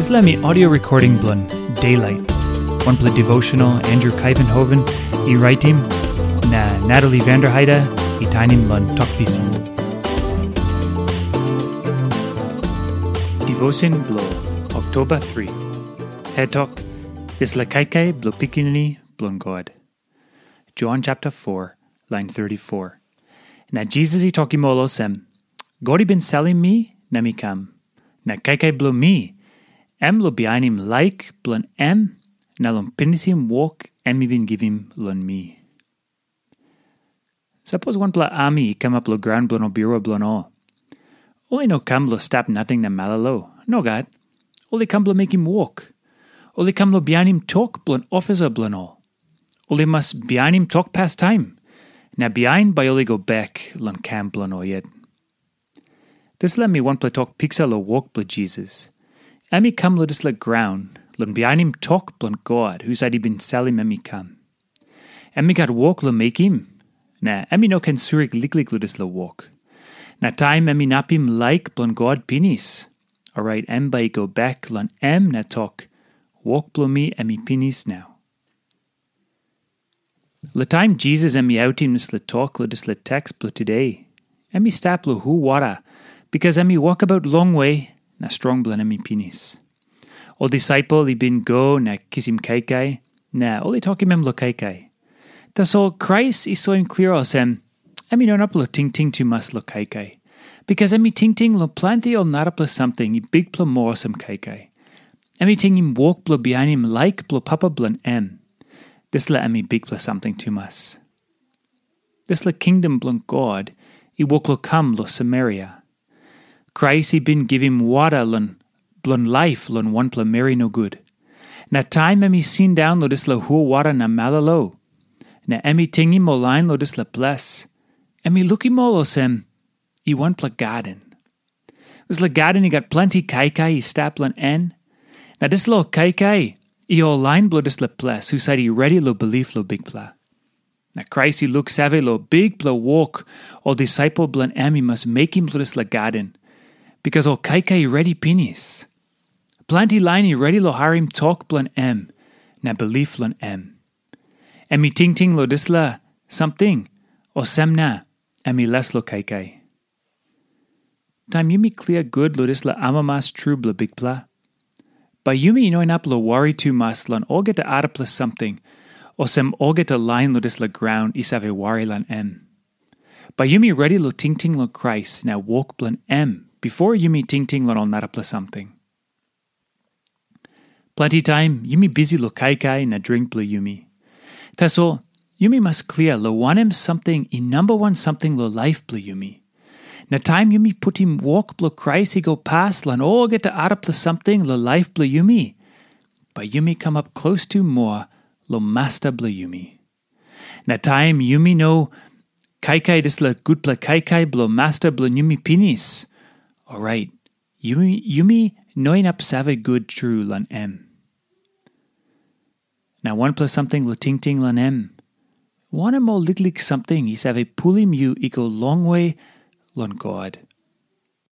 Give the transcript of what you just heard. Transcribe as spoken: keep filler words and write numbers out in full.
Dispela mi audio recording bilong Daylight, wanpela devotional Andrew Kaivenhoven i raitim, na Natalie Vanderheide i tainim long Tok Pisin. Devotion bilong Oktoba tri. Het tok, dispela kaikai bilong Pikinini bilong God. Jon chapter four, lain thirty-four. Na Jisas i tokim ol olsem, "God i bin salim mi na mi kam. Na kaikai bilong mi, em long bihainim laik bilong em na long pinisim wok em i bin givim long mi." Sapos wanpela ami i kamap long graun bilong ol birua bilong ol, ol i no kam long stap nating na malolo. Nogat. Ol i kam bilong mekim wok. Ol i kam long bihainim tok bilong ofisa bilong ol. Ol i mas bihainim tok pastaim, na bihain bai ol i go bek long kam bilong ol yet. Dispela mi wanpela tok piksa long wok bilong Jisas. Em i kam long dispela graun long bihainim tok bilong God husat i bin salim em i kam. Em i gat wok long mekim, na em i no ken surik liklik long dispela wok. Na taim em inapim laik bilong God pinis, orait em bai i go bek long em na tok, "Wok bilong mi em i pinis nau." Long taim Jisas em i autim dispela tok long dispela teks bilong today, em i stap long hul wara, bikas em i wokabaut longwe na strong bilong em i pinis. Ol disaipel i bin go na kisim kaikai, na ol i tokim em long kaikai. Tasol Krais i soim klia olsem, em i no inap long tingting tumas long kaikai, bikas em i tingting long planti ol narapela samting i bikpela moa olsem kaikai. Em i tingim wok bilong bihainim laik bilong Papa bilong em. Dispela em i bikpela samting tumas. Dispela kingdom bilong God i wok long kam long Samaria. Krais i bin givim wara long bilong laip long wanpela meri nogut. Na taim em i sindaun long dispela hul wara na malolo, na em i tingim ol lain long dispela ples, em i lukim ol olsem, i wanpela gaden. Dispela gaden i gat planti kaikai i stap long en. Na dispela ol kaikai i ol lain bilong dispela ples husat i redi long bilip long Bikpela. Na Krais i luksave long bikpela wok ol disaipel bilong em i mas mekim long dispela gaden, bikas ol kaikai i redi pinis. Planti lain i redi long harim tok bilong em na bilip long em. Em i tingting long dispela samting, olsem na em i les long kaikai. Taim yumi klia gut long dispela amamas tru bilong Bikpela, bai yumi no inap long wari tumas long olgeta arapela samting, olsem olgeta lain long dispela graun i save wari long em. Bai yumi redi long tingting long Krais na wok bilong em bipo yumi tingting long ol narapela samting. Planti taim yumi bisi long kaikai na dring bilong yumi. Tasol yumi mas klia long wanem samting i namba wan samting long laip bilong yumi. Na taim yumi putim wok bilong Krais i go pas long olgeta arapela samting long laip bilong yumi, bai yumi kamap klostu moa long Masta bilong yumi. Na taim yumi no kaikai dispela gutpela kaikai bilong Masta bilong yumi pinis, orait yumi, yumi no inap save gut tru long em. Na wanpela samting long tingting long em, wanem ol liklik samting i save pulim yu i go longwe long God?